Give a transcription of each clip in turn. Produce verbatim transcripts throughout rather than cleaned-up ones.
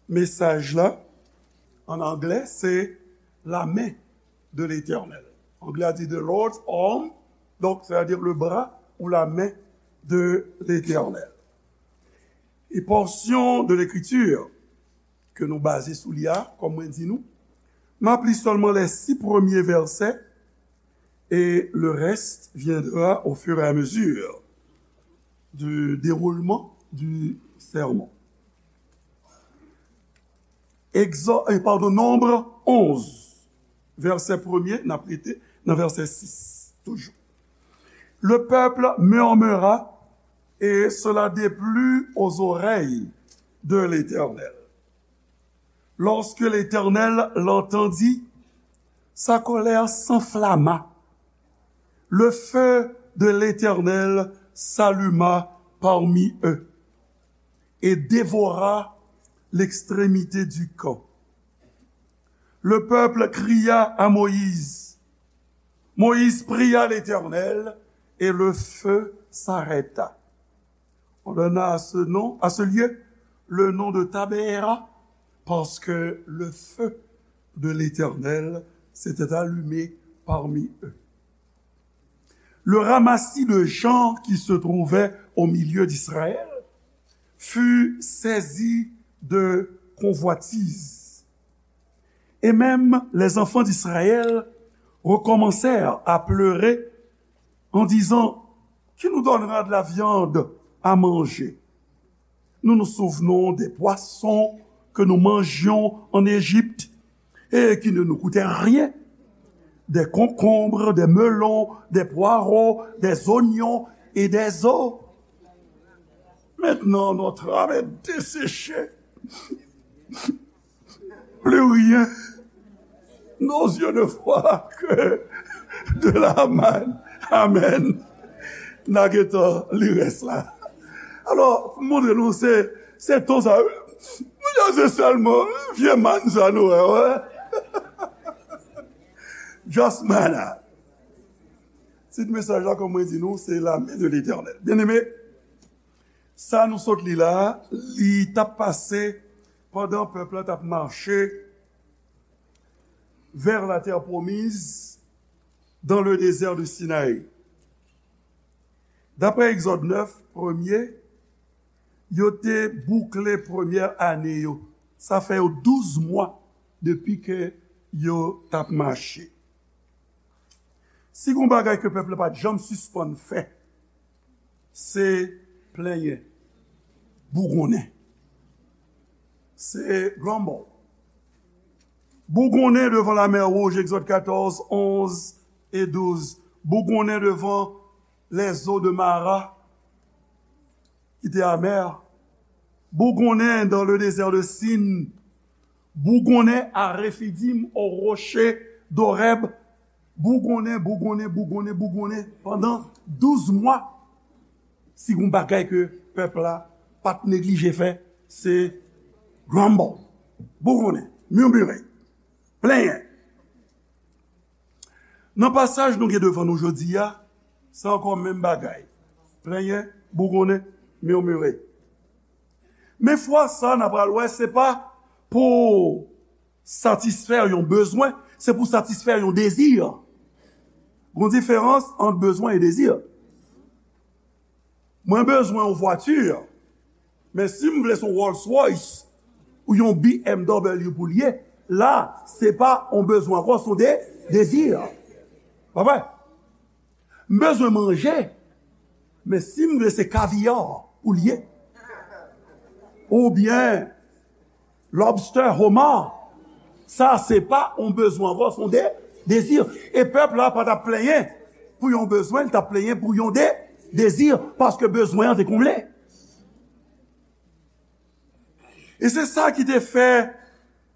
mesaj la, an anglè, se la main de l'Éternel. Anglè a di the Lord's arm, donc, c'est-à-dire le bras ou la main de l'Éternel. E pòsyon de Lekritir ke nou baze sou li a, kòm mwen di nou, m ap li sèlman les six premiers versets et le reste viendra au fur et à mesure du déroulement du sermon. Egzò, eh, padon, Nonb onz, vèsè premye, n ap rete nan vèsè sis, toujou. Le peuple murmura, et cela déplut aux oreilles de l'Éternel. Lorsque l'Éternel l'entendit, sa colère s'enflamma. Le feu de l'Éternel s'alluma parmi eux et dévora l'extrémité du camp. Le peuple cria à Moïse. Moïse pria l'Éternel et le feu s'arrêta. On donna à ce nom, à ce lieu, le nom de Tabéra, parce que le feu de l'Éternel s'était allumé parmi eux. Le ramassis de gens qui se trouvaient au milieu d'Israël fut saisi de convoitise. Et même les enfants d'Israël recommencèrent à pleurer en disant, qui nous donnera de la viande à manger? Nous nous souvenons des poissons que nous mangions en Égypte et qui ne nous coûtaient rien, des concombres, des melons, des poireaux, des oignons et des os. Maintenant, notre âme est desséchée. Plus rien. Nos yeux ne voient que de la manne. Amen. N a gentan li rès la. Alò, m montre nou se, se ton sa, wi. Mwen se sèlman vye mann sa nou wè, wè. Just manna. Tit mesaj la, kòm mwen di nou, se la main de l'Éternel. Byeneme, sa nou sot li la, li t ap pase pandan pèp la t ap mache vers la terre promise dans le désert de Sinaï. Daprè Egzòd nèf, premye, yo te boukle premyè ane yo. Sa fè yo douz mwa depi ke yo t ap mache. Si gon bagay ke pèp la pa t janm sispann fè, se plenyen, bougonnen. Se grumble. Bougonnen devan lamè wouj, Egzòd katòz, onz e douz. Bougonnen devan les eaux de Mara, ki te amè. Bougonnen dans le désert de Sin. Bougonnen à Refidim, au rocher d'Horeb. Bougonnen, bougonnen, bougonnen, bougonnen. Pandan douz mwa, si gon bagay ke pèp la pa t neglije fè, se grumble. Bougonnen, murmure, plenyen. Nan pasaj nou gen devan nou jodi a, se ankò menm bagay. Plenyen, bougonnen, murmure. Men fwa sa, n a pral wè, se pa pou satisfè yon bezwen, se pou satisfè yon dezi. Gon diferans ant bezwen e dezi. Mwen bezwen yon vwati, men si m vle se yon Rolls Royce ou yon B M W pou l ye, la, se pa yon bezwen ankò, se yon de, dezi. Pa vre? M bezwen manje, men si m vle se kaviya pou l ye, oubyen lobster, homard, sa se pa yon bezwen ankò, se yon de, dezi. E pèp la pa t ap plenyen pou yon bezwen, li t ap plenyen pou yon de, dezi, paske bezwen an te konble. E se sa ki te fè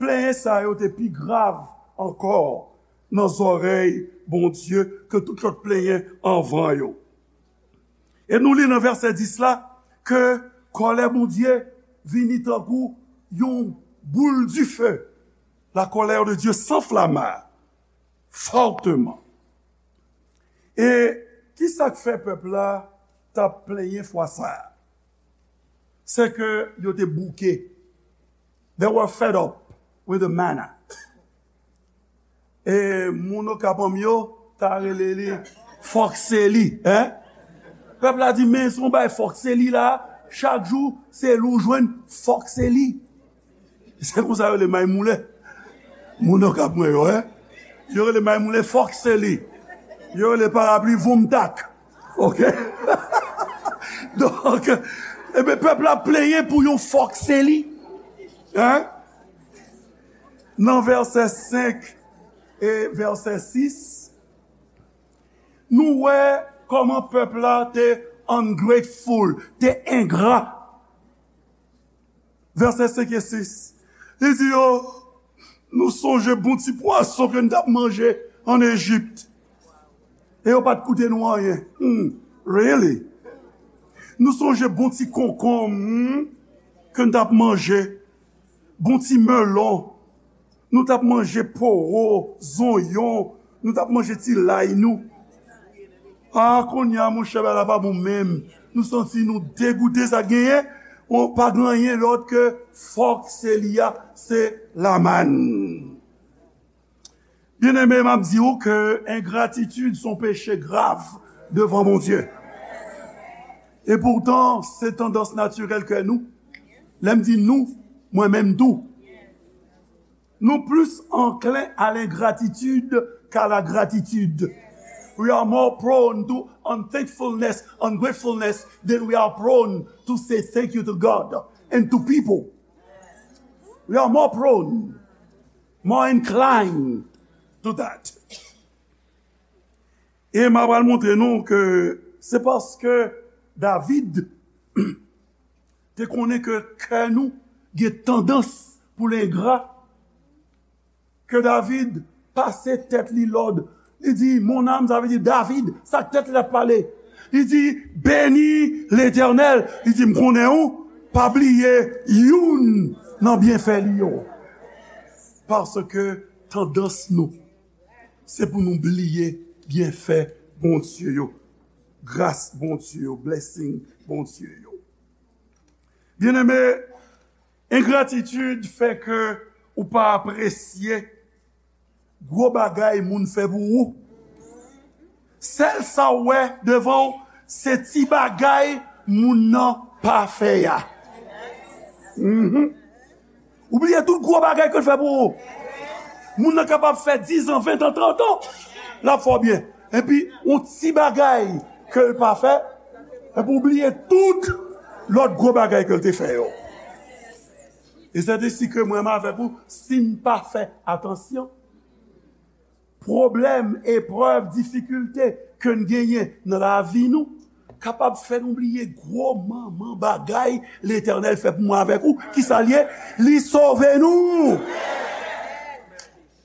plenyen sa yo te pi grav ankò nan zòrèy Bondye ke tout lòt plenyen anvan yo. E nou li nan vèsè dis la ke kòlè Bondye vini tankou yon boul dife. La colère de Dieu s'enflamma fortement. E ki sa k fè pèp la t ap plenyen fwa sa a? Se ke yo te bouke. They were fed up with the manna. E moun Okap an m yo ta rele li fòk se li, en? Pèp la di, men se yon bagay fòk se li la, chak jou se li w jwenn, fòk se li. Se konsa yo rele may moulen. Moun Okap mwen yo, en? Yo rele may moulen fòk se li. Yo rele parapli voumtak. Ok? Donk, ebyen, pèp la plenyen pou yon fòk se li. En? Nan vèsè senk e vèsè sis, nou wè kòman pèp la te ungrateful, te engra. Vèsè senk e sis, li di yo, nou sonje bon ti pwason ke n t ap manje ann Ejip. E yo pa t koute nou anyen. Hmm, really? Nou sonje bon ti konkonm, hmm, ke n t ap manje. Bon ti melon. Nou t ap manje powo, zonyon. Nou t ap manje ti lay nou. A, kounye a, monchè, bagay la pa bon menm. Nou santi nou degoute, sa genyen, on, pa gen anyen lòt ke fòk se li a, se lamann. Byeneme, m ap di w ke engratitid se yon peche grav devan Bondye. E poutan, se tandans natirèl ke nou. Lè m di nou, mwen menm tou. Nou plis anklen a lengratitid k'a lagratitid. We are more prone to unthankfulness, ungratefulness, than we are prone to say thank you to God and to people. We are more prone, more inclined to that. E m a pral montre nou ke se paske David te konnen ke kè nou gen tandans pou l engra, ke David pase tèt li lòd. Li di, mon âme, sa vle di David, sa k tèt li ap pale. Li di, beni Letènèl. Li di, m konnen ou pa bliye youn nan byenfè li yo. Paske tandans nou, se pou nou bliye byenfè Bondye yo, gras Bondye yo, blessing Bondye yo. Byeneme, engratitid fè ke ou pa apresye gwo bagay moun fè pou ou. Sèl sa w wè devan w, se ti bagay moun nan pa fè a. Mhm. Ou bliye tout gwo bagay ke l fè pou ou. Moun nan kapab fè diz an, ven an, trant an, l ap fè w byen. Epi, yon ti bagay ke l pa fè, epi w bliye tout lòt gwo bagay ke l te fè yo. E se te si ke mwen menm avèk ou, si n pa fè atansyon, pwoblèm, eprèv, difikilte ke n genyen nan lavi nou kapab fè nou bliye gwo manman bagay Letènèl fè pou mwen avèk ou. Kisa l ye? Li sove nou.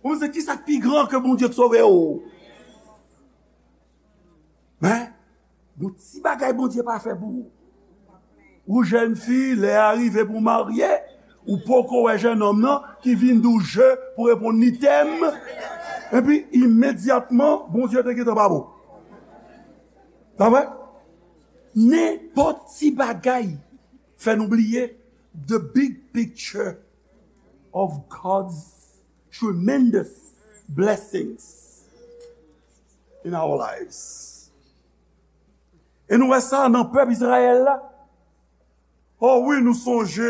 Ou se kisa k pi gran ke Bondye k sove ou? Men, gon ti bagay Bondye pa fè pou ou. Ou jèn fi, lè a rive pou w marye, ou poko wè jennonm nan ki vin di w je pou reponn li t'aime. Epi, imedyatman, Bondye te gentan pa bon. Pa vre? Nenpòt ti bagay fè nou bliye the big picture of God's tremendous blessings in our lives. E nou wè sa nan pèp Izrayèl la. O wi, nou sonje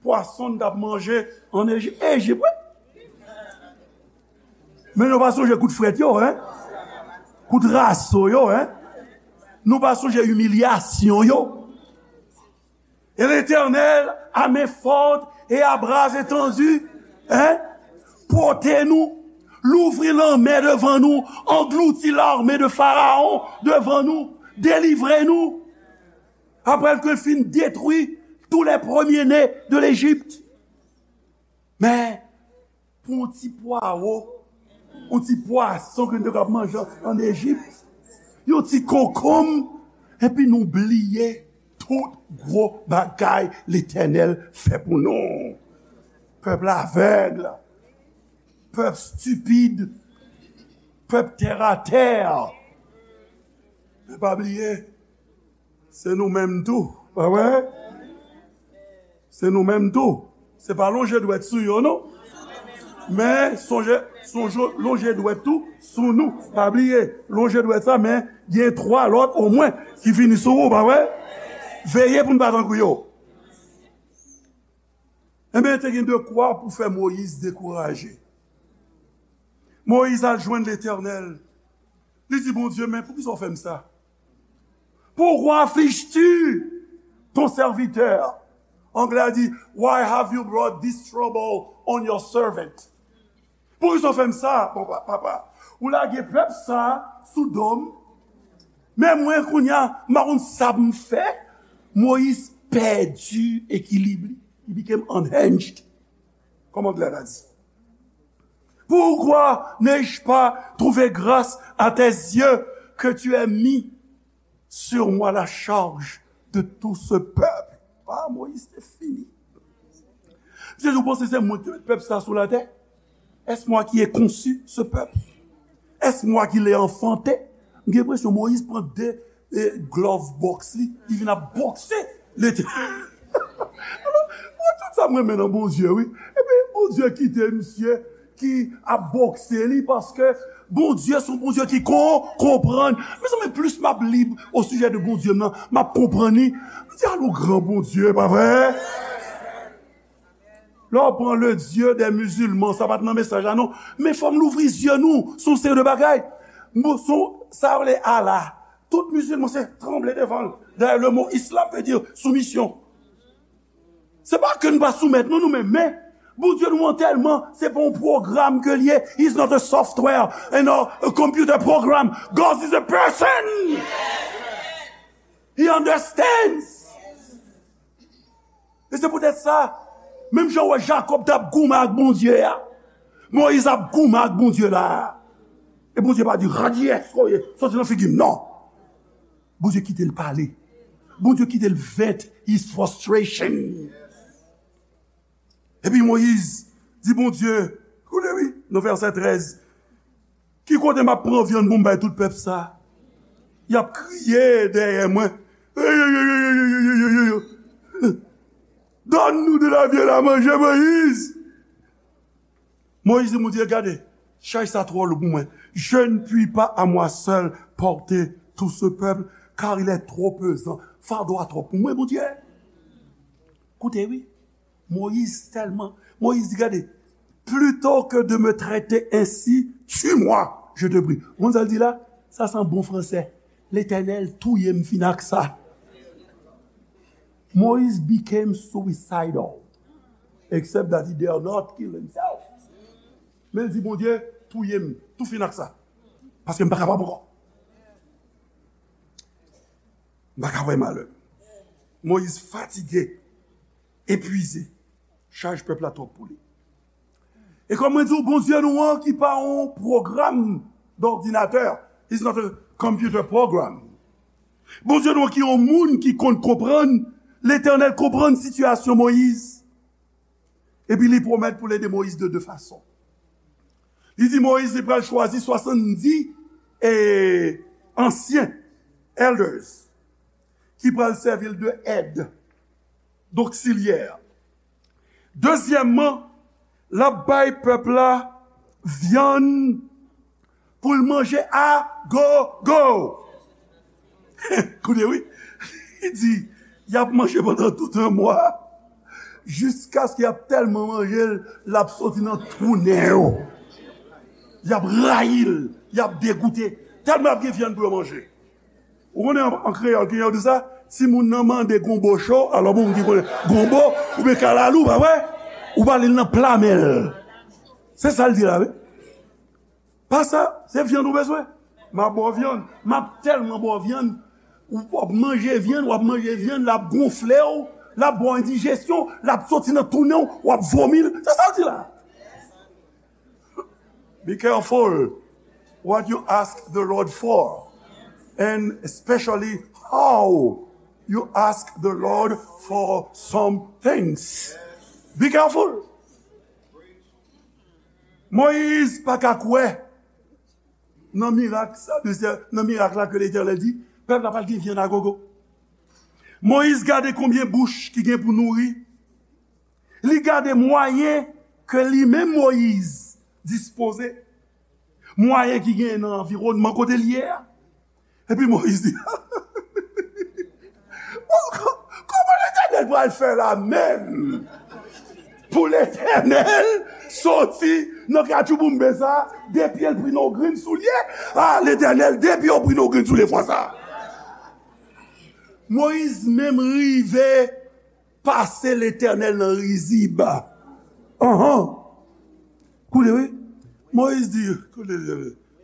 pwason n t ap manje ann Eji-, Ejip, wi. Men nou pa sonje kout frèt yo, en? Kout raso yo, en? Nou pa sonje imilyasyon yo. Et l'Éternel, à main forte et à bras étendu, hein, pote nou, louvri lanmè devan nou, anglouti l'armée de Pharaon devan nou, delivre nou, apre ke l fin detwi tous les premiers-nés de l'Égypte. Men, pou yon ti pwawo, yon ti pwason ke nou te konn ap manje ann Ejip, yon ti konkonm, epi nou bliye tout gwo bagay Letènèl fè pou nou. Pèp la avèg, pèp stipid, pèp tèratè. Men pa bliye, se nou menm tou, pa vre? Se nou menm tou. Se pa lonje dwèt sou yo, non. Men sonje, sonje lonje dwèt tou sou nou. Pa bliye, lonje dwèt sa, men gen twa lòt omwen ki vini sou ou, pa vre? Veye pou n pa tankou yo. Enben, te gen dekwa pou fè Moyiz dekouraje. Moyiz al jwenn Letènèl. Li di Bondye, "Men poukisa w fè m sa? Pourquoi affliges-tu ton serviteur?" Anglè a di, "Why have you brought this trouble on your servant?" Poukisa w fè m sa, papa, papa? Ou lage pèp sa sou do m. Men mwen, kounye a, m pa konn sa pou m fè. Moyiz pèdi ekilib li. He became unhinged. Kòman anglè a di? Pourquoi n'ai-je pas trouvé grâce à tes yeux que tu aies mis sur moi la charge de tout ce peuple? Ah, Moyiz te fini. Misye di, "Ou panse se mwen ki te met pèp sa sou latè? Est-ce moi qui ai conçu ce peuple? Est-ce moi qui l'ai enfanté?" M gen enpresyon Moyiz pran de e glove box li, li vin ap bokse Letènèl. Alò, mwen, tout sa m renmen nan Bondye, wi. Epi Bondye kite misye ki ap bokse li paske Bondye se yon Bondye ki kon, konprann. Mezanmi, plis m ap li osijè de Bondye m nan, m ap konprann li. M di, "Alo, gran Bondye, pa vre?" Lè w pran le Dieu des musulmans, sa pa t nan mesaj la, non. Men fò m louvri zye nou sou yon seri de bagay. Mo, sou, sa yo rele Allah. Tout mizilman se tranble devan l. Dayè, le mo islam vle di soumisyon. Se pa ke n pa soumèt nou, nou menm, men Bondye nou an tèlman, se pa yon pwogram ke l ye. He's not a software and a, a computer program. God is a person. He understands. E se poutèt sa, menm jan w wè Jakòb t ap goumen ak Bondye a, Moyiz ap goumen ak Bondye la. E Bondye pa di, "Radyès, koye, soti nan figi m," non. Bondye kite l pale. Bondye kite l vent his frustration. Epi Moyiz di Bondye, koute wi, nan vèsè trèz, "Ki kote m ap pran vyann pou m bay tout pèp sa? Y ap kriye dèyè mwen. Donne-nous de la viande à manger, Moïse." Moyiz di Bondye, "Gade, chay sa twò lou pou mwen. Je ne puis pas à moi seul porter tout ce peuple, car il est trop pesant." Fado a twòp pou mwen, Bondye. Koute wi. Moyiz tèlman, Moyiz di, "Gade, plutôt que de me traiter ainsi, tue-moi, je te prie." Ou konn sa l di la? Sa se an bon fransè. "Letènèl, touye m fin ak sa." Moyiz became suicidal, except that he dare not kill himself. Men l di, "Bondye, touye m tou fin ak sa, paske m pa kapab ankò. M pa ka wè malè." Moyiz fatige, epwize. Chaj pèp la twòp pou li. E kòm mwen di w, Bondye nou an ki pa yon pwogram dòdinatè, is not a computer program. Bondye nou an ki yon moun ki konn konprann, Letènèl konprann sitiyasyon Moyiz. Epi li pwomèt pou l ede Moyiz de de fason. Li di Moyiz li pral chwazi swasanndis e ansyen, elders, ki pral sèvi l de èd, doksilyè. Dezyèmman, l ap bay pèp la vyann pou l manje a gogo. Koute wi, li di, y ap manje pandan tout yon mwa, jiskaske y ap tèlman manje l, l ap soti nan twou nen yo. Y ap rayi l, y ap degoute, tèlman y ap gen vyann pou yo manje. Ou konnen an, an kreyòl, gen yo di sa, timoun nan mande gonbo cho, alò bon, moun ki konnen gonbo, oubyen kalalou, pa vre? Ou ba li l nan pla men l. Se sa l di la, wi. Pa sa, se vyann ou bezwen. M ap ba w vyann. M ap tèlman ba w vyann. Ou, w ap manje vyann, w ap manje vyann, l ap gonfle w, l ap ba w endijesyon, l ap soti nan twou nen w, w ap vomi l. Se sa l di la. Be careful what you ask the Lord for, and especially how you ask the Lord for some things. Be careful. Moyiz pa ka kwè nan mirak sa, nan mirak la ke Letènèl di, pèp la pral gen vyann a gogo. Moyiz gade konbyen bouch ki gen pou nouri. Li gade mwayen ke li menm Moyiz dispoze, mwayen ki genyen nan anviwònman kote l ye a. Epi Moyiz di, "Bon, kò-, kòman Letènèl pral fè la menm? Pou Letènèl soti nan katchouboumbe sa, de pye l pran yon grenn soulye? A, Letènèl, de pye w pran yon grenn soulye fwa sa." Moyiz menm rive pase Letènèl nan rizib. Anhan. Koute, wi. Moyiz di, koute,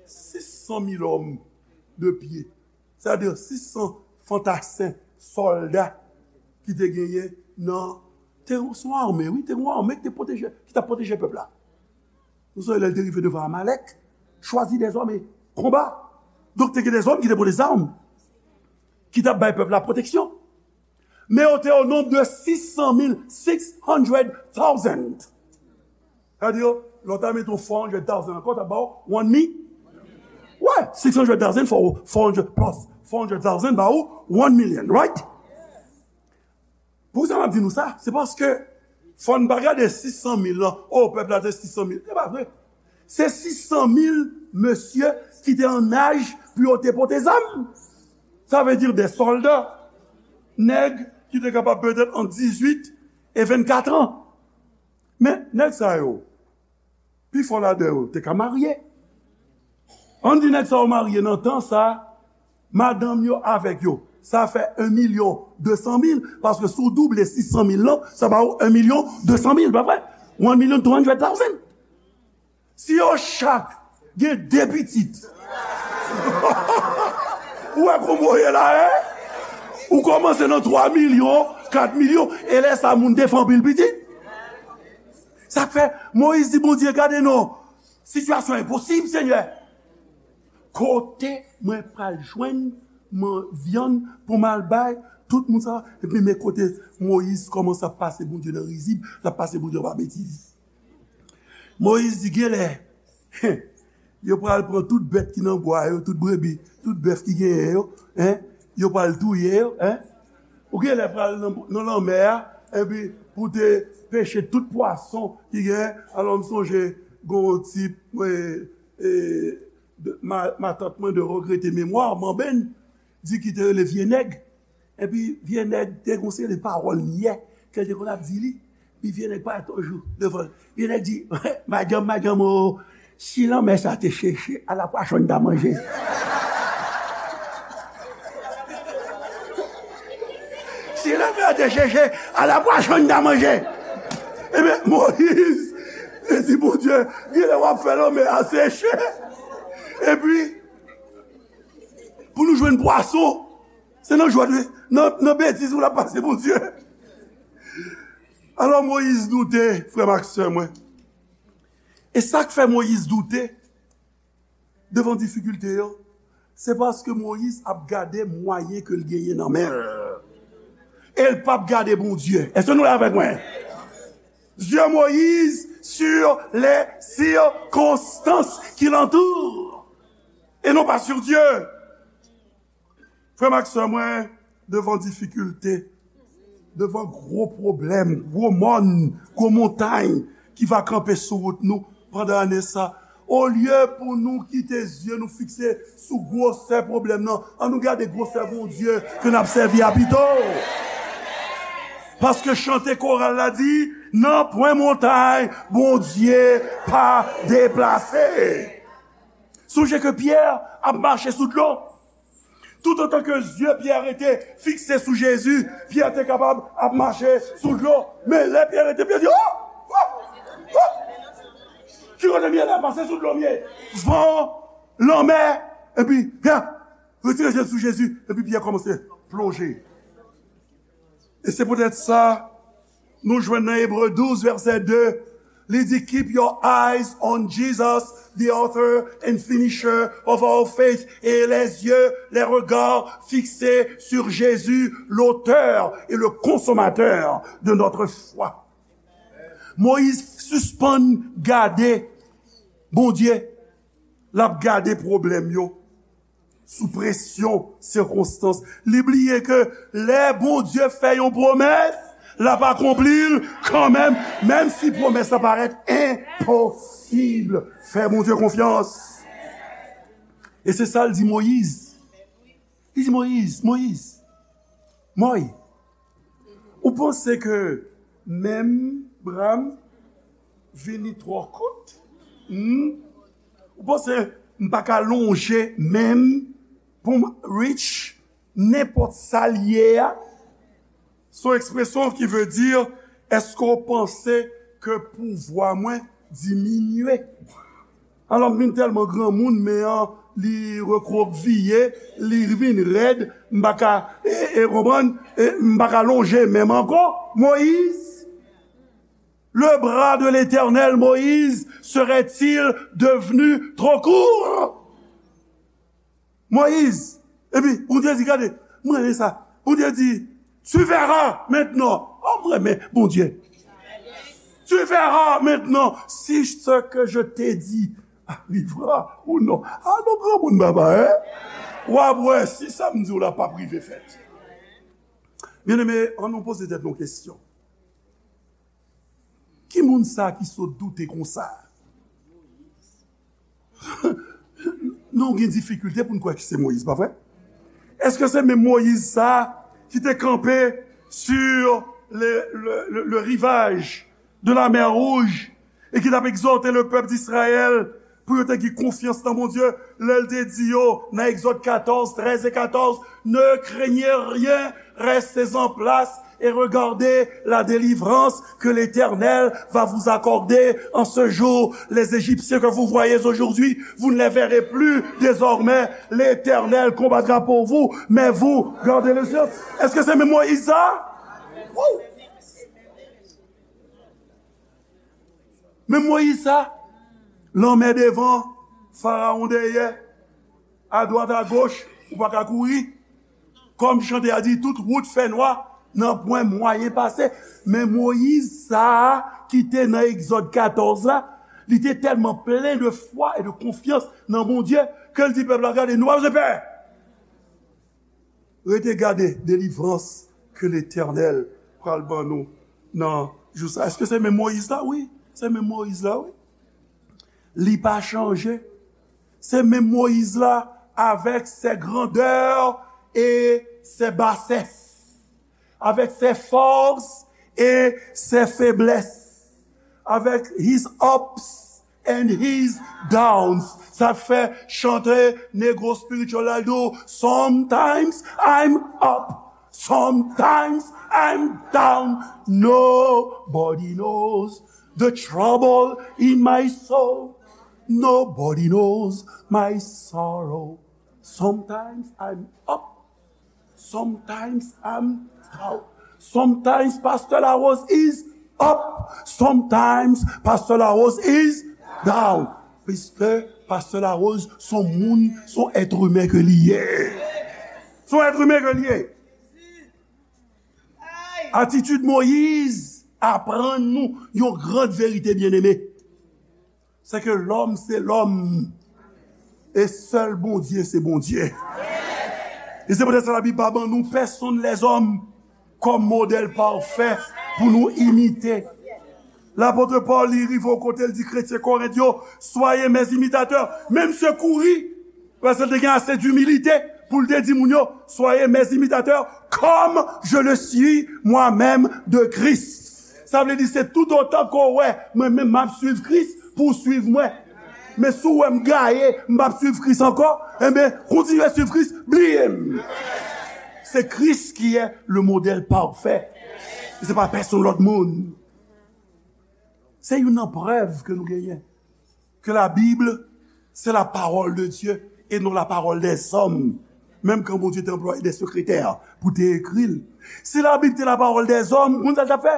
sis san mil òm de pye. Sa vle di sis san fantasen sòlda ki te genyen nan, te se yon ame, wi, te yon ame ki te pwoteje, ki t ap pwoteje pèp la. Nou sonje lè l te rive devan Amalèk, chwazi dèzòm e konba. Donk, te gen dèzòm ki te pran dèzòm, ki t ap bay pèp la pwoteksyon. Men yo te o nonb de sis san mil, six hundred thousand. Sa vle di, lè w ta mete yon four hundred thousand ankò, ta ba w one mi-, wè, six hundred thousand for four hundred plus four hundred thousand ba ou one million, right? Poukisa m ap di nou sa? Se paske fò n pa gade sis san mil lan, o, pèp la te sis san mil. Se pa vre. Se sis san mil mesye ki te an aj pou yo te pote zam. Sa vle di de sòlda, nèg ki te kapab petèt ant dizuit e vennkat an. Men, nèg sa yo, pifò ladan yo te ka marye. Ann di nèg sa yo marye nan tan sa, madanm yo avèk yo. Sa fè en milyon de san mil, paske si w double sis san mil lan, sa ba ou en milyon de san mil, pa vre? One million two hundred thousand. Si yo chak gen de pitit, ou wè kòman w ye la, en? Ou kòmanse nan twa milyon, kat milyon, e lè sa moun te fè anpil pitit. Sa k fè Moyiz di Bondye, "Gade non, sitiyasyon enposib, Senyè. Kote mwen pral jwenn man-, vyann pou m al bay tout moun sa?" Epi men kote Moyiz kòmanse ap pase Bondye nan rizib, l ap pase Bondye pa betiz. Moyiz di, "Genlè, yo pral pran tout bèt ki nan bwa yo, tout brebi, tout bèf ki genyen yo, en, yo pral touye yo, en. Ou genlè pral nan, nan lanmè a, epi pou te peche tout pwason ki genyen." Alò, m sonje gon tip, mwen, e, de, ma, matant mwen de regrete memwa, Manben, di ki te rele Vye Nèg. Epi vye nèg te gon seri de pawòl nyè ke l te konn ap di li. Epi vye nèg parèt yon jou devan l. Vye nèg di, "Madanm, madanm, o, si lanmè sa te cheche, ala pwason n ta manje. Si lanmè a te cheche, ala pwason n ta manje." Ebyen, Moyiz te di Bondye, "Genlè w ap fè lanmè a seche. Epi, pou nou jwenn pwason, se nan jwèt, nan, nan betiz pou n ap pase Bondye." Alò, Moyiz doute, frè m ak sè mwen. E sa k fè Moyiz doute devan difikilte yo, se paske Moyiz ap gade mwayen ke l genyen nan men l. E l p ap gade Bondye. Èske nou la avèk mwen? Yeux Moïse sur les circonstances qui l'entourent et non pas sur Dieu. Frè m ak sè mwen, devan difikilte, devan gwo pwoblèm, gwo mòn, gwo montay ki va kanpe sou wout nou pandan ane sa, olye pou nou kite zye nou fikse sou gwosè pwoblèm nan, ann nou gade gwosè Bondye ke n ap sèvi a pito. Paske chante koral la di, "Nanpwen montay Bondye pa deplase." Sonje ke Pyè ap mache sou dlo. Toutotan ke zye Pyè rete fikse sou Jezi, Pyè te kapab ap mache sou dlo. Men lè Pyè rete, Pyè di, "O! O! O! Ki kote m ye la? Pase sou dlo m ye." Van, lanmè, epi Pyè retire je l sou Jezi, epi Pyè kòmanse plonje. E se poutèt sa, nou jwenn nan Ebre douz, vèsè de, li di, "Keep your eyes on Jesus, the author and finisher of our faith." Et les yeux, les regards fixés sur Jésus, l'auteur et le consommateur de notre foi. Moyiz sispann gade Bondye, l ap gade pwoblèm yo sou presyon sikonstans. Li bliye ke lè Bondye fè yon pwomès, L ap akonpli l kanmenm, menm si pwomès la parèt enposib. Fè Bondye konfyans. E se sa l di Moyiz. Li di Moyiz, Moyiz, Mòy, ou panse ke men m bra m vini twò kout? Hmm? Ou panse m pa ka lonje men m pou m reach nenpòt sa l ye a? Se yon ekspresyon ki vle di, èske w panse ke pouvwa mwen diminye? Alò, m vin tèlman granmoun, men an, li rekwokiye, li vin rèd, m pa ka, e, e, konprann, e, m pa ka lonje men m ankò. Moyiz, le bras de l'Éternel, Moïse, serait-il devenu trop court? Moyiz. Epi, Bondye di, gade, mwen renmen sa. Bondye di, tu verras maintenant. Oh, mwen renmen Bondye. Tu verras maintenant si ce que je t'ai dit arrivera ou non. Ah, non, granmoun papa, hein? W ap wè si sa m di w la p ap rive fèt. Byeneme, ann nou poze tèt nou kesyon. Ki moun sa ki sot doute konsa? Nou gen difikilte pou n kwè ke se Moyiz, pa vre? Èske se menm Moyiz sa ki te kanpe sur le, le, le, le rivage de la mer Rouge e ki t ap egzòte le pèp d'Israël pou yo te gen konfyans nan Bondye, lè l te di yo nan Egzòd katòz, trèz e katòz, ne craignez rien, restez en place et regardez la délivrance que l'Éternel va vous accorder en ce jour. Les Égyptiens que vous voyez aujourd'hui, vous ne les verrez plus désormais. L'Éternel combattra pour vous, mais vous, gardez le ciel. Èske se menm Moyiz sa? Wou! Men Moyiz sa, lanmè devan, Farawon dèyè, adwat agoch, ou pa ka kouri. Kòm chante a di, tout wout fè nwa, nanpwen mwayen pase. Men Moyiz sa a ki te nan Egzòd katòz la, li te tèlman plen de fwa e de konfyans nan Bondye ke l di pèp la, gade, nou pa bezwen pè. Rete gade delivrans ke Letènèl pral ban nou nan jou sa. Èske se menm Moyiz la? Wi, se menm Moyiz la, wi. Li pa chanje. Se menm Moyiz la avèk ses grandeurs et ses bassesses, avec ses forces et ses faiblesses, avec his ups and his downs. Sa fè chante negro spiritual la di w, sometimes I'm up, sometimes I'm down. Nobody knows the trouble in my soul. Nobody knows my sorrow. Sometimes I'm up. Sometimes I'm down. Sometimes Pastor Larose is up. Sometimes Pastor Larose is down. Piske Pastor Larose se yon moun, se yon èt imen ke li ye. Se yon èt imen ke li ye. Atitid Moyiz aprann nou yon gran verite, byeneme. Se ke lòm se lòm. E sèl Bondye se Bondye. E se poutèt sa Labib pa ban nou pèsonn lèzòm kòm modèl pafè pou nou imite. Lapot Pòl, li rive yon kote, l di kretyen Korent yo, soyez mes imitateurs. Men misye kouri, paske l te gen ase dimilite pou l te di moun yo, soyez mes imitateurs, comme je le suis moi-même de Christ. Sa vle di se tout otan ke w wè mwen menm m ap swiv Kris pou w swiv mwen. Men si w wè m gaye, m p ap swiv Kris ankò, enben, kontinye swiv Kris, bliye m. Se Kris ki est le modèle parfait. Se pa pèsonn lòt moun. Se youn nan prèv ke nou genyen ke Labib se la parole de Dieu et non la parole des hommes. Menm kan Bondye te anplwaye de sekretè pou te ekri l. Si Labib te la parole des hommes, konn sa l t ap fè?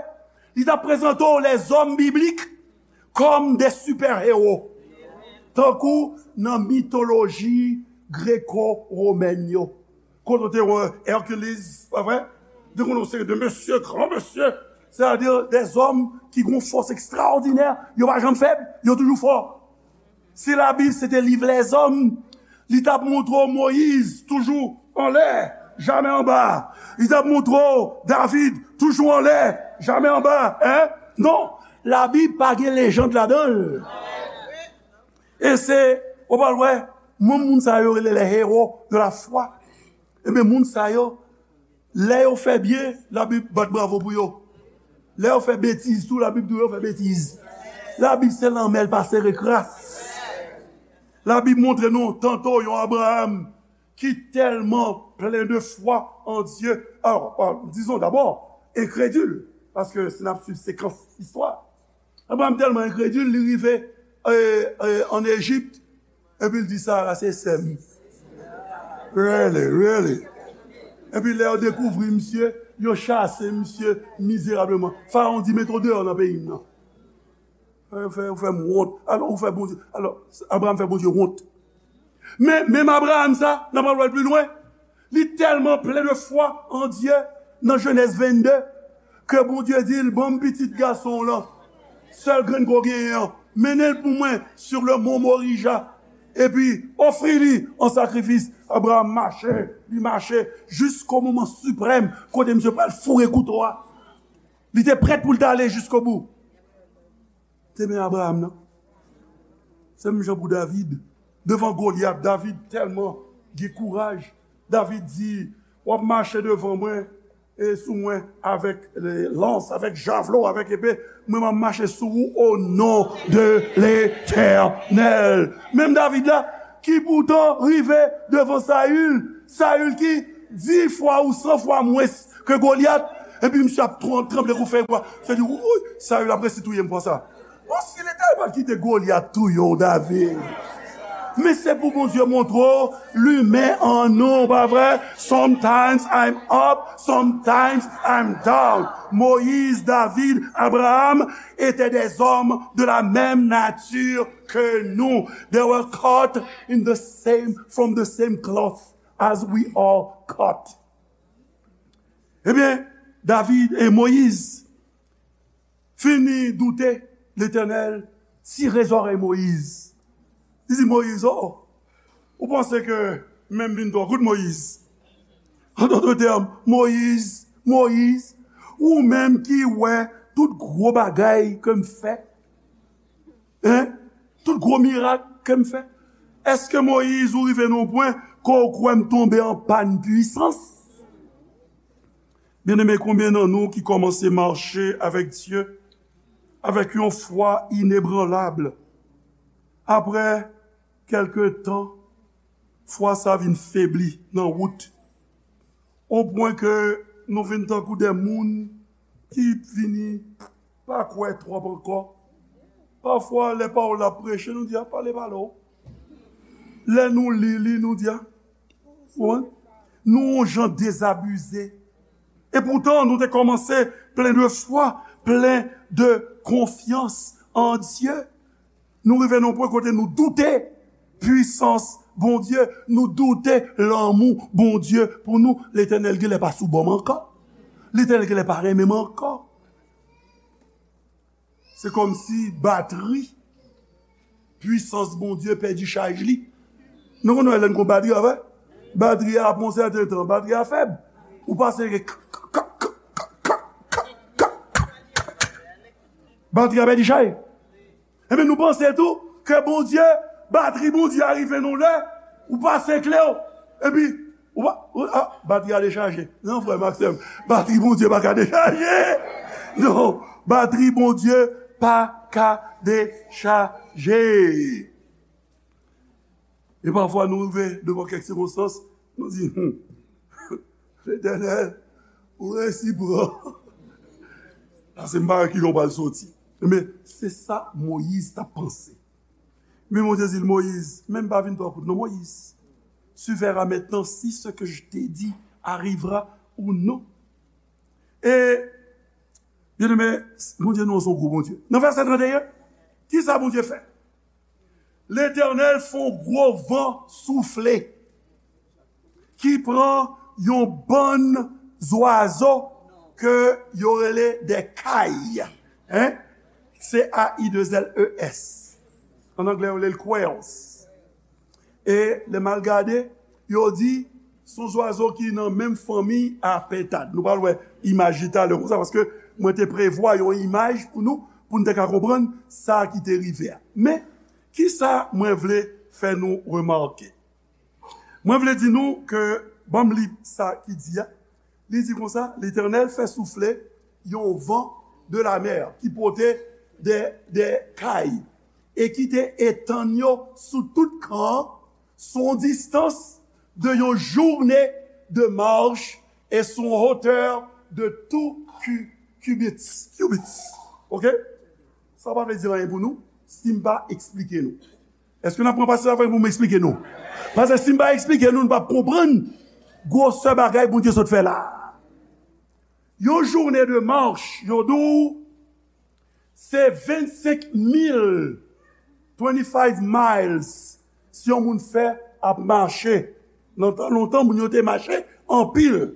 Li t ap prezante w lèzòm biblik kòm de sipè ewo. Tankou nan mitoloji greko-womèn yo. Kote w te wè Hercules, pa vre? Te konn yon seri de mesye, gran mesye, sètadi dèzòm ki gen yon fòs ekstraòdinè, yo pa janm fèb, yo toujou fò. Si Labib se te liv lèzòm, li t ap montre w Moyiz toujou anlè, Jamè anba. Li t ap montre w, David, toujou anlè, jamè anba, en? Non, Labib pa gen lejand ladan l. E se, ou pral wè, menm moun sa yo rele les héros de la foi. Ebyen, moun sa yo, lè yo fè byen, Labib bat bravo pou yo. Lè yo fè betiz tou, Labib di yo fè betiz. Labib se lanmè, l pa sere kras. Labib montre nou, tanto yon Abraham ki tèlman plen de fwa an Dye, alò, euh, dizon dabò, enkredil, paske si n ap swiv sekans istwa, Abraham tèlman enkredil, li rive, euh, euh, ann Ejip, epi l di, Sara se sè m. Really, really. Epi lè yo dekouvri misye, yo chase misye mizerableman. Farawon di, mete w deyò nan peyi m nan. Ou fè, ou fè m wont. Alò, ou fè Bondye. Alò, Abraham fè Bondye wont. Men, menm Abraham sa, n ap al wè l pi lwen. Li tèlman plen de fwa an Dye, nan Jenèz vennde, ke Bondye di l, ban m pitit gason w lan, sèl grenn ke w genyen an, mennen l pou mwen sur le mont Morija, epi ofri li an sakrifis. Abraham mache, li mache, jisko moman siprèm, kote misye pral foure kouto a. Li te prèt pou l t ale jiskobou. Te men Abraham nan. Se menm jan pou David. Devan Golyat, David tèlman gen kouraj. David di, w ap mache devan mwen e sou mwen avèk, e, lans, avèk javlo, avèk epe. Mwen, m ap mache sou ou o non de Letènèl. Menm David la, ki poutan rive devan Sayil, Sayil ki di fwa ou san fwa mwens ke Golyat, epi misye ap tran-, tranble kou fèy bwa. Se di, wouyy, Sayil ap resi touye m konsa. Bon, si Letènèl pa t kite Golyat touye w, David. Men se pou Bondye montre w limen an nou, pa vre? Sometimes I'm up, sometimes I'm down. Moïse, David, Abraham étaient des hommes de la même nature que nous. They were cut in the same, from the same cloth as we are cut. Ebyen, David e Moyiz fini doute, Letènèl tire zòrèy Moyiz. Li di Moyiz, o, ou panse ke menm vin twò kout Moyiz? An dòt tèm, Moyiz, Moyiz, ou menm ki wè tout gwo bagay ke m fè, en? Tout gwo mirak ke m fè. Èske Moyiz ou rive nan yon pwen ke w kwè m tonbe an pàn pwisans? Byeneme, konbyen nan nou ki kòmanse mache avèk Dye avèk yon fwa inebranlab? Apre kèlke tan, fwa sa vin febli nan wout, o pwen ke nou vin tankou de moun ki vini pa kwè twòp ankò. Pafwa, lè pawòl la ap preche, nou di, a, pale, pale w. Lè nou li li, nou di, a, ou konprann? Nou yon jan dezabize. E poutan, nou te kòmanse plen de fwa, plen de konfyans an Dye. Nou rive nan yon pwen kote nou doute pwisans Bondye, nou doute lanmou Bondye pou nou. Letènèl genlè pa sou bò m ankò. Letènèl genlè pa renmen m ankò. Se kòmsi batri pwisans Bondye pèdi chaj li. Nou konn wè lè n gon batri a, vre? Batri a, apre yon sèten tan, batri a fèb. Ou pase k, k, k, batri a pèdi chaj. Ebyen, nou panse tou ke Bondye, batri Bondye a rive nan lè, ou pase kle w, epi, ou pa, ou, a, batri a dechaje. Non, frè m ak sè m, batri Bondye pa ka dechaje. Non, batri Bondye pa ka dechaje. E pafwa, nou rive devan kèk sikonstans, nou di, hmm, Letènèl, ou resi pran. Paske m pa wè ki jan w pral soti. Men, se sa Moyiz t ap panse. Men Bondye di l, Moyiz, men m pa vin twò kout non, Moyiz. Tu verras maintenant si ce que je t'ai dit arrivera ou non. E, byeneme, Bondye nou an se yon gwo Bondye. Nan vèsè trannteyen, ki sa Bondye fè? Letènèl fè yon gwo van soufle ki pran yon bann zwazo ke yo rele de kay. En? C A I deux L E S. An anglè, yo rele l quails. E lè m al gade, yo di, Se yon zwazo ki nan menm fanmi a pentad. Nou pral wè imaj li talè konsa, paske mwen te prevwa yon imaj pou nou, pou n te ka konprann sa ki te rive a. Men, kisa mwen vle fè nou remake? Mwen vle di nou ke, ban m li sa ki di a. Li di konsa, Letènèl fè soufle yon van de la mè ki pote de, de kay e ki te etann yo sou tout kan an, sou yon distans de yon jounen de mach e sou yon wotè de tou ki-, cubits, cubits. Oke? Sa pa vle di anyen pou nou si m pa eksplike nou. Èske n ap pran pasaj la pou m eksplike nou? Paske si m pa eksplike nou, nou p ap konprann gwosè bagay Bondye sot fè la. Yon jounen de mach, yo di w, se vennsenk mil, twenty-five miles, si yon moun fè ap mache. Nan tan lontan, moun yo te mache anpil.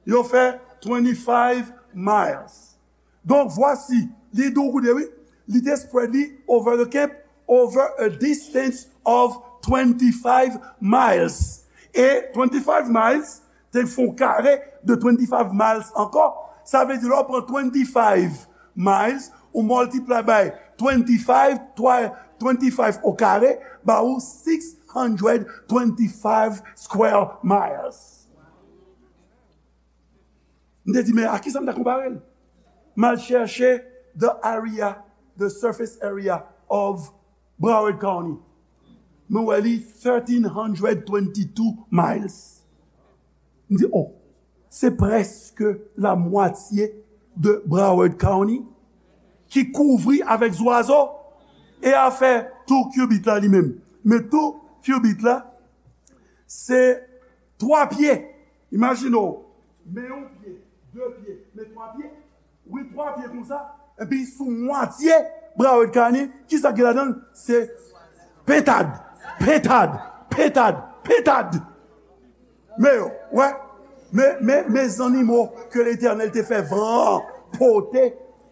Yo fè twenty-five miles. Donk, vwasi, li di w koute, wi. Li te spread li over the camp, over a distance of twenty-five miles. E twenty-five miles, te fè yon kare de twenty-five miles ankò. Sa vle di, lè w pran twenty-five miles, ou multiply by twenty-five, twa-, twenty-five o kare, ba ou six hundred twenty-five square miles. M te di, men a kisa m ta konpare l? M al chèche the area, the surface area of Broward County. Mwen wè li thirteen hundred twenty-two miles. M di, oh, se prèske la mwatye de Broward County ki kouvri avèk zwazo e afè tou cubit la li menm. Men tou cubit la, se twa pye. Imajine w, men yon pye, de pye, men twa pye. Wi, twa pye konsa. Epi sou mwatye Broward County, kisa ki ladan l? Se pentad, pentad, pentad, pentad. Men yo, wè, men, men, men zannimo ke Letènèl te fè van an pote,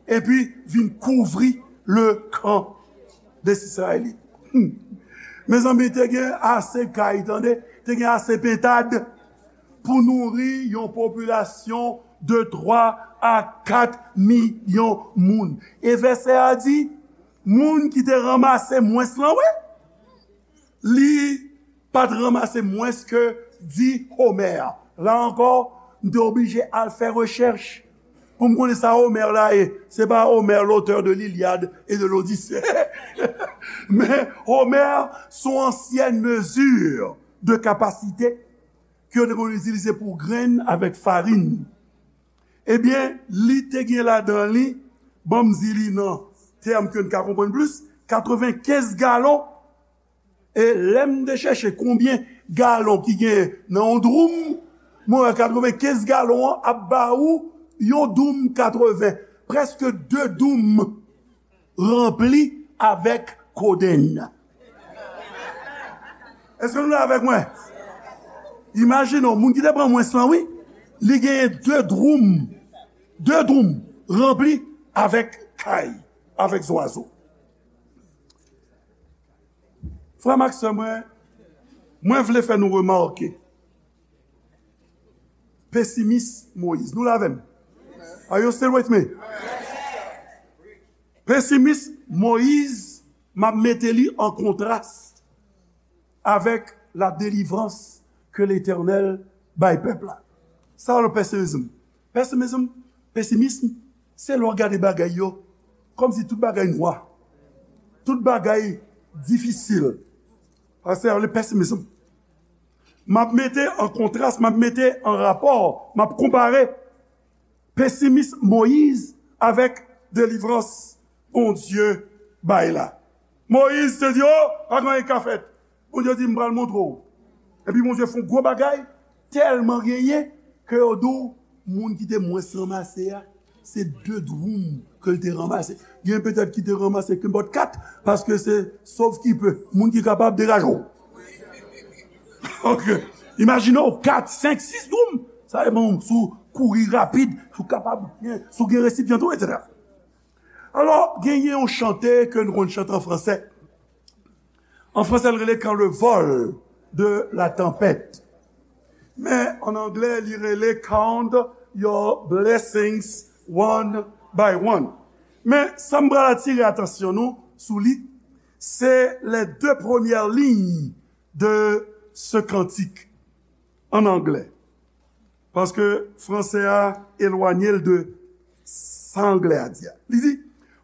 epi vin kouvri le kan de Izrayèl. Hmm. Mezanmi, te gen ase kay, tande, te gen ase pentad pou nouri yon popilasyon de twa a kat milyon moun. E vèsè a di, moun ki te ranmase mwens lan, wi, li pa t ranmase mwens ke dis omè. La ankò, m te oblije al fè rechèch pou m konnen sa omè la ye. Se pa Homère, l'auteur de l'Iliade et de l'Odyssée. Men omè, se yon ansyen mezi de kapasite ke yo te konn itilize pou grenn avèk farin. Ebyen, li te gen ladan li, ban m di li nan tèm ke n ka konprann plis, katrevenkenz galon. E lè m te chèche konbyen galon ki gen nan yon dwoum, mwen wè katrevenkenz galon an ap ba ou yon dwoum katreven, prèske de dwoum ranpli avèk kodenn. Èske nou la avèk mwen? Imajine w, moun ki te pran mwens lan, wi, li genyen de dwoum, de dwoum ranpli avèk kay, avèk zwazo. Frè m ak sè mwen, mwen vle fè nou remake pesimis Moyiz. Nou la avè m? Are you still with me? Pesimis Moyiz, m ap mete li an kontras avèk la delivrans ke Letènèl bay pèp la. Sa w rele pesimism? Pesimism, pesimism, se lè w gade bagay yo kòmsi tout bagay nwa, tout bagay difisil. Sa se le pesimism. M ap mete an kontras, m ap mete an rapò, m ap konpare pesimis Moyiz avèk delivrans Bondye bay la. Moyiz te di, "O, pa gen anyen k ka fèt." Bondye di, "M pral montre w." Epi Bondye fè yon gwo bagay, tèlman genyen, ke yo di w, moun ki te mwens ranmase a, se de dwoum ke l te ranmase. Gen petèt ki te ranmase kenpòt kat, paske se sov ki pe. Moun ki kapab degaje w. Ok. Imajine w, kat, senk, sis dwoum. Sa depann si w kouri rapid, si w kapab, si w gen resipyan tou, etsetera. Alò, genyen yon chante ke nou konn chante an fransè. An fransè, l rele Quand le vol de la tempête. Men, an anglè, li rele Count Your Blessings One by One. Men, sa m pral atire atansyon nou sou li, se les deux premières lignes de ce cantique, an anglè. Paske franse a elwanye l de sa anglè a di a. Li di,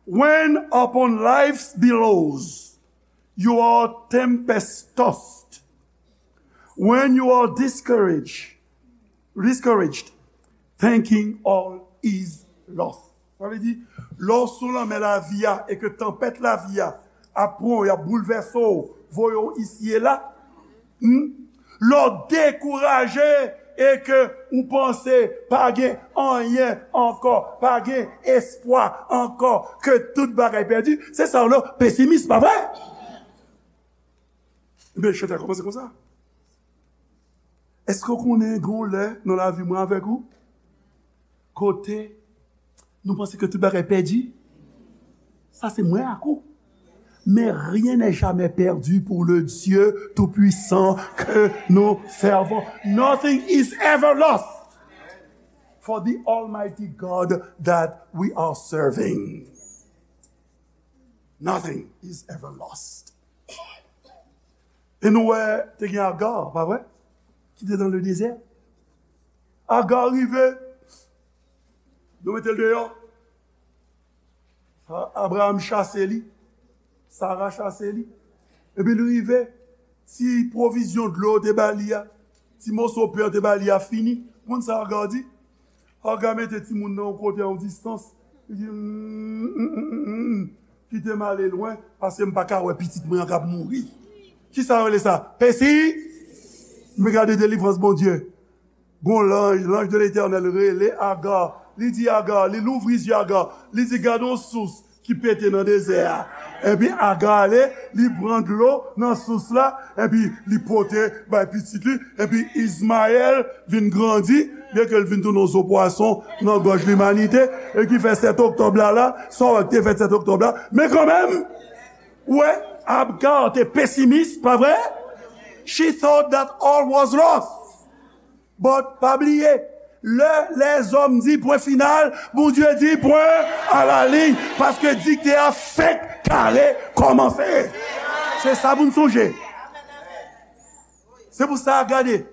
"When upon life's billows you are tempest tossed, when you are discouraged, discouraged, thinking all is lost." Sa vle di, lè w sou lanmè lavi a e ke tanpèt lavi a ap pran w, y ap boulvèse w, voye w isi e la, hmm? Lè w dekouraje e ke ou panse pa gen anyen ankò, pa gen espwa ankò, ke tout bagay pèdi, se sa w rele pesimis, pa vre? Ebyen, chante a kòmanse konsa. Èske w konnen gen yon lè nan lavi mwen avèk ou, kote nou panse ke tout bagay pèdi? Sa se mwen ak ou. Mais rien n'est jamais perdu pour le Dieu tout-puissant que nous servons. Nothing is ever lost for the Almighty God that we are serving. Nothing is ever lost. E nou wè, te gen Agar, pa vre? Ki te nan le dezè. Agar rive, yo mete l deyò. A-, Abraham chase li, Sara chase li. Epi li rive, ti pwovizyon dlo yo te ba li a, ti moso pen yo te ba li a fini. Ou konn sa Agar di? Agar mete timoun nan yon kote a yon distans. Li di, "Mm, mm, mm, mm, mm, kite m ale lwen, paske m pa ka wè pitit mwen an k ap mouri." Kisa yo rele sa? Pesi? Men gade delivrans Bondye. Gon lanj, l'ange de l'Éternel rele Agar. Li di Agar, li louvri zye Agar. Li di, "Gade yon sous ki pete nan dezè a." Epi Agar ale, li pran dlo nan sous la, epi li pote bay pitit li, epi Izmayèl vin grandi, byenke l vin tounen yon zo pwason nan gòj limanite, e ki fè sèt oktòb la la, sa w wè ki te fèt sèt oktòb la, men kanmenm, ou wè, Agar te pesimis, pa vre? She thought that all was lost. But, pa bliye, lè lèzòm di pwen final, Bondye di pwen a la liy, paske dikte a fenk kare kòmanse. Se sa pou n sonje. Se pou sa, gade,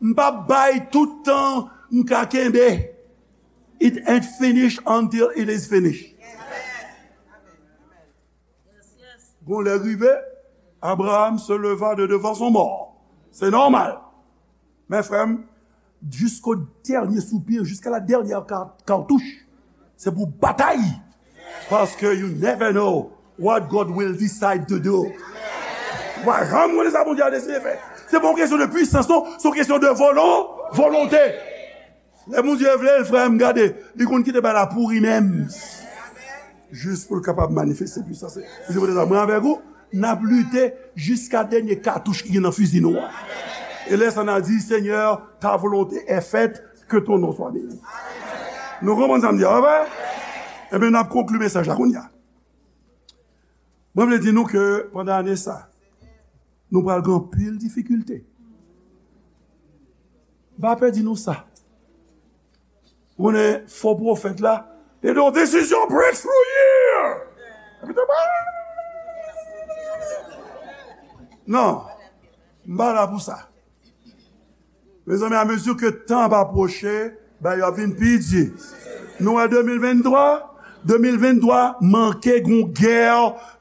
m p ap bay tout tan m ka kenbe. It ain't finished until it is finished. Gon lè rive, Abraham se leva de devan son mò. Se nòmal. Men frè m, jusqu'au dernier soupir, jusqu'à la dernière car-, cartouche, se pou batay. Paske you never know what God will decide to do. Ou pa janm konnen sa Bondye a deside fè. Se pa yon kesyon de pwisans, non. Se yon kesyon de volon-, volonte. Lè Bondye vle l, frè m, gade, li konn kite bagay la pouri menm. Jis pou l kapab manifeste pwisans li. Bondye pote sa, mwen avèk ou, n ap lite jiska dènye katouch ki gen nan fizi nou an. E lè sa n a di, Seigneur, ta volonté est faite, que ton nom soit béni. Nou konprann sa m di a, pa vre? Ebyen, n ap konkli mesaj la kounye a. Mwen vle di nou ke pandan ane sa, nou pral gen anpil difikilte. M pa pè di nou sa. Ou konnen fo pwofèt la, te di yon desizyon breakthrough year. Epi te pa. Non, m pa la pou sa. Mezanmi, amezi ke tan ap apwoche, bagay yo ap vin pi di. Nou wè de mil venntwa, de mil venntwa manke gon gè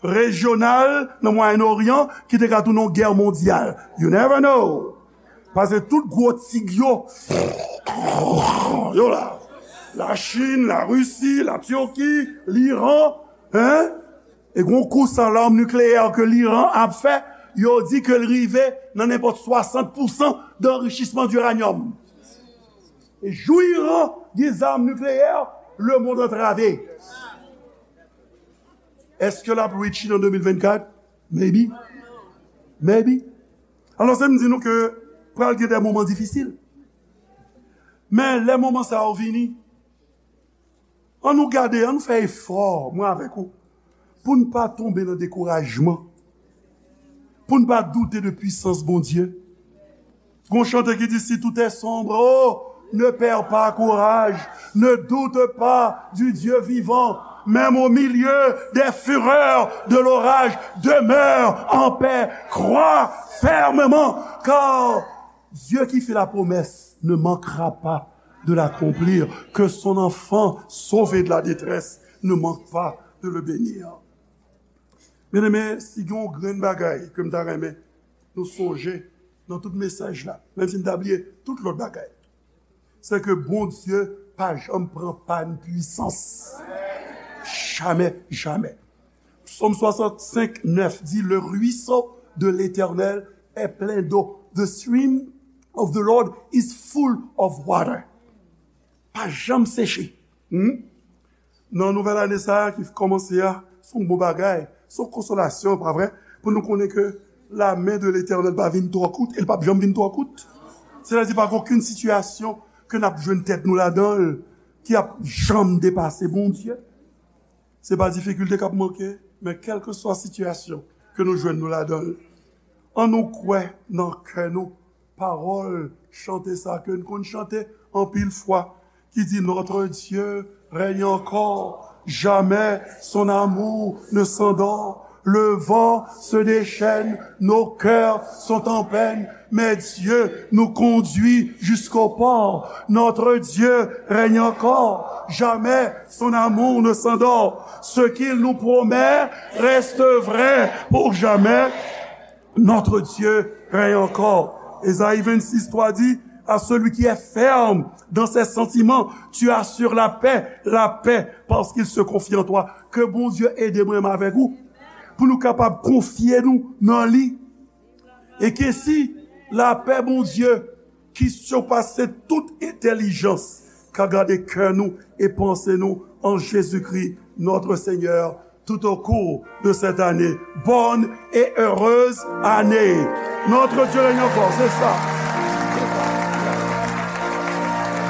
rejyonal nan Mwayen Oryan ki te ka tounen yon gè mondyal. You never know. Paske tout gwo tig yo, yo la. Lachin, Larisi, Latiki, Liran, hein? E gon kous a lòm nikleyè ke Liran ap fè, yo di ke l rive nan nenpòt swasant pousan de anrichisman di iranyòm. E jou Iran gen zam nikleyè, lemonn antrave. Èske l ap reach it an de mil vennkat? Maybe. Maybe. Alò, se m di nou ke pral gen de moman difisil. Men lè moman sa yo vini, an nou gade, an nou fè efò, mwen avèk ou, pou n pa tonbe nan dekourajman, pou n pa doute de pwisans Bondye. Gon chante ki di, si tout est sombre, oh, ne perds pas courage, ne doute pas du Dieu vivant, même au milieu des fureurs de l'orage, demeure en paix, crois fermement, car Dieu qui fait la promesse ne manquera pas de l'accomplir, que son enfant sauvé de la détresse ne manque pas de le bénir. Byeneme, si gen yon grenn bagay ke m ta renmen nou sonje nan tout mesaj la, menm si n ta bliye tout lòt bagay, se ke Bondye pa janm pran pàn pwisans. Jamè, jamè. Psaume soixante-cinq, neuf dit, le ruisseau de l'Éternel est plein d'eau. The stream of the Lord is full of water. Pa janm seche. Hmm? Nan nouvèl ane sa a ki kòmanse a, se yon bon bagay, se yon konsolasyon, pa vre? Pou nou konnen ke la men de Letènèl pa vin twò kout, e l p ap janm vin twò kout. Sètadi, pa gen okenn sitiyasyon ke n ap jwenn tèt nou ladan l ki ap janm depase Bondye. Se pa difikilte k ap manke, men kèlkeswa sitiyasyon ke nou jwenn nou ladan l, ann nou kwè nan kè nou pawòl chante sa ke n konn chante anpil fwa, ki di, Notre Dieu règne encore, jamais son amour ne s'endort. Le vent se déchaîne, nos cœurs sont en peine, mais Dieu nous conduit jusqu'au port. Notre Dieu règne encore, jamais son amour ne s'endort. Ce qu'il nous promet reste vrai pour jamais. Notre Dieu règne encore. Ésaïe vingt-six trois dit, à celui qui est ferme dans ses sentiments, tu assures la paix, la paix, parce qu'il se confie en toi. Ke Bondye ede mwen menm avèk ou pou nou kapab konfye nou nan li. E ke si lapè Bondye ki sipase tout entèlijans ka gade kè nou e panse nou en Jésus-Christ, notre Seigneur, tout au cours de cette année. Bonne et heureuse année. Notre Dieu règne encore, c'est ça.